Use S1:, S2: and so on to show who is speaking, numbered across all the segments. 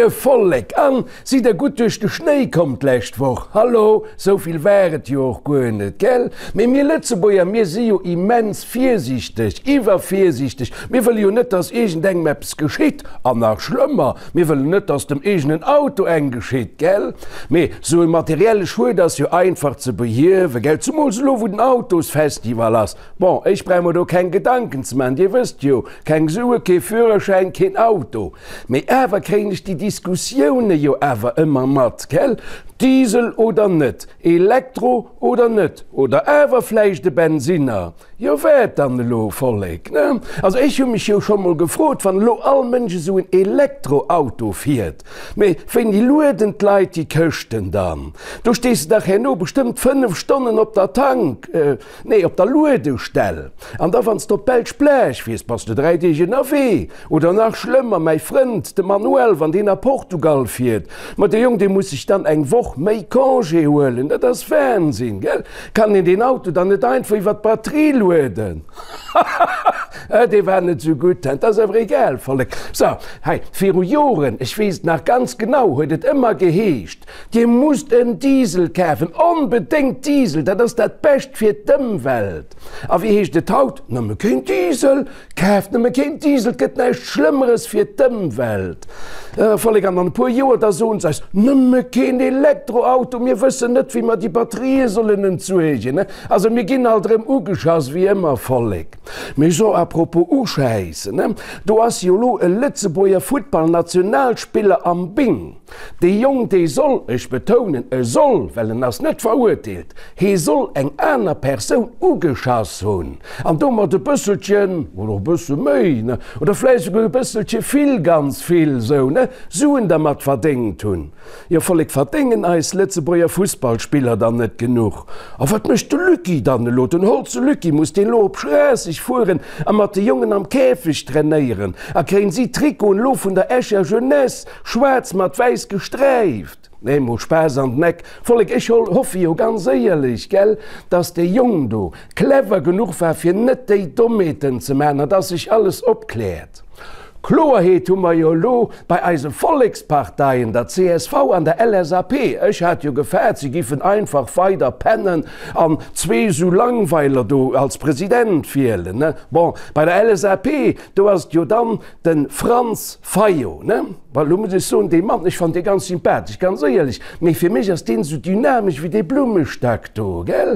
S1: Moie Vollek an sidd der gutt duerch de Schnéi komm d'lescht Woch? Hallo, sou vill war et jo och guer net, gell? Mee mir Lëtzebuerger, mir si jo immens virsiichteg, iwwervirsiichteg. Mir wëlle jo net, dass iergendengem eppes geschitt an nach schlëmmer, mir wëllen net, dass dem eegenen Auto eng geschitt, gell? Mee sou e materielle Schued ass jo einfach ze behiewen, gell? Zumools elo, wou den Autosfestival ass. Bon, ech brauch mer do keng Gedanken ze maachen, Dir wësst jo, keng Sue, kee Führerschäin, keen Auto. Mee awer kréien ech déi Diskussioune jo awer ëmmer mat, gell? Diesel oder net, Elektro oder net, oder awer vläicht e Bensinner? Jo, wat dann elo, Vollek, ne? Also ech hu mech jo scho mol gefrot, wann elo all Mënsch esou en Elektroauto fiert, mee wéini lueden d'Leit déi Këschten dann? Do stees de dach herno bestëmmt 5 Stonnen op der Tank. Nee, op der Luedestell. An da wann s de op d'belsch Plage fiers, bass de 3 Deeg ënnerwee. Oder nach schlëmmer, mäi Frënd, de Manuel, wann deen a Portugal fiert, ma de Jong, dee muss sech dann eng Woch méi Congé huelen. Dat ass Wahnsinn, gell? Kann een deen Auto dann net einfach iwwer d'Batterie lueden? Hahaha, dee war net sou gutt, dat ass awer egal, Vollek. So, hei, viru Joren, ech weess et nach ganz genau, huet et ëmmer geheescht, Dir musst en Diesel kafen, onbedéngt Diesel, dat ass dat Bescht fir d'Ëmwelt. A wéi heescht et haut? Nëmme keen Diesel, kaaft nëmme keen Diesel, et gëtt näischt Schlëmmeres fir d'Ëmwelt. Vollek, an an e puer Joer, da soen se eis, nëmme keen Elektroauto, mir wëssen net, wéi mer déi Batterië sollen entsuergen. Also mir ginn alt erëm ugeschass, wéi ëmmer, Vollek. Mee so, à propos uschäissen, do ass jo elo e Lëtzebuerger Futtballnationalspiller am Bing. Dee Jong, dee soll, ech betounen, e soll, well en ass net verurteelt, hee soll eng aner Persoun ugeschass hunn an domat e bësselchen, oder e bësse méi, ne, oder vläicht esouguer e bësselche vill, ganz vill esou, ne, Suen dermat verdéngt hunn. Jo, Vollek, verdéngen eis Lëtzebuerger Fussballspiller dann net genuch? A wat mécht de Lucky dann elo? Den Holze Lucky, muss deen elo op Schraasseg fueren a mat de Jongen am Käfeg trainéieren? A kréien si d'Trikoten elo vun der Escher Jeunesse? Schwaarz mat wäiss gesträift. Nee, mol Spaass an den Eck, Vollek, ech hoffe jo ganz éierlech, gell, dass dee Jong do clever genuch war fir net déi Dommheeten ze man an dass sech alles opkläert. Kloerheet hu mer jo elo bei eise Volleksparteien, der csv an der LSAP. Ech hat jo gefaart, se giffen einfach weider pennen an zwee sou Langweiler do als President wielen, ne. Bon, bei der LSAP, do ass et jo dann Den Franz Fayot, ne? Bon, elo muss ech soen, dee Mann, ech fannen dee ganz sympathesch, ganz éierlech, mee fir mech ass deen esou dynamesch wéi dee Blummestack do, gell?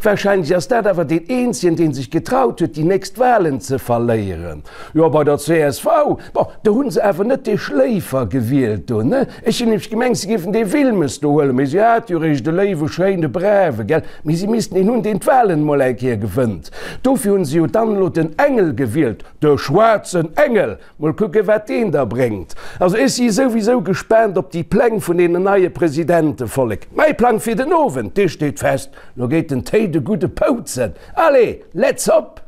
S1: Wahrscheinlech ass dat awer deen eenzegen, dee sech getraut huet, déi nächst Wahlen ze verléieren. Jo, bei der csv, bon, do hu se awer net dee Schléifer gewielt do, ne? Ech hunn nämlech gemengt, se géifen dee Wilmes do huelen, mee si hate jo eréischt e léiwe, schéine, brave, gell? Mee si missten een hunn, deen d'Wahlen emol eng Kéier gewënnt. Dofir hu se jo dann elo den Engel gewielt. De schwaarzen Engel! Mol kucke wat deen da bréngt. Also ech si souwisou gespaant op déi Pläng vun deenen neie Presidente, Vollek. Mäi Plang fir den Owend, dee steet fest, lo geet den Téi de gudde Poutzen. Allez, let's hop!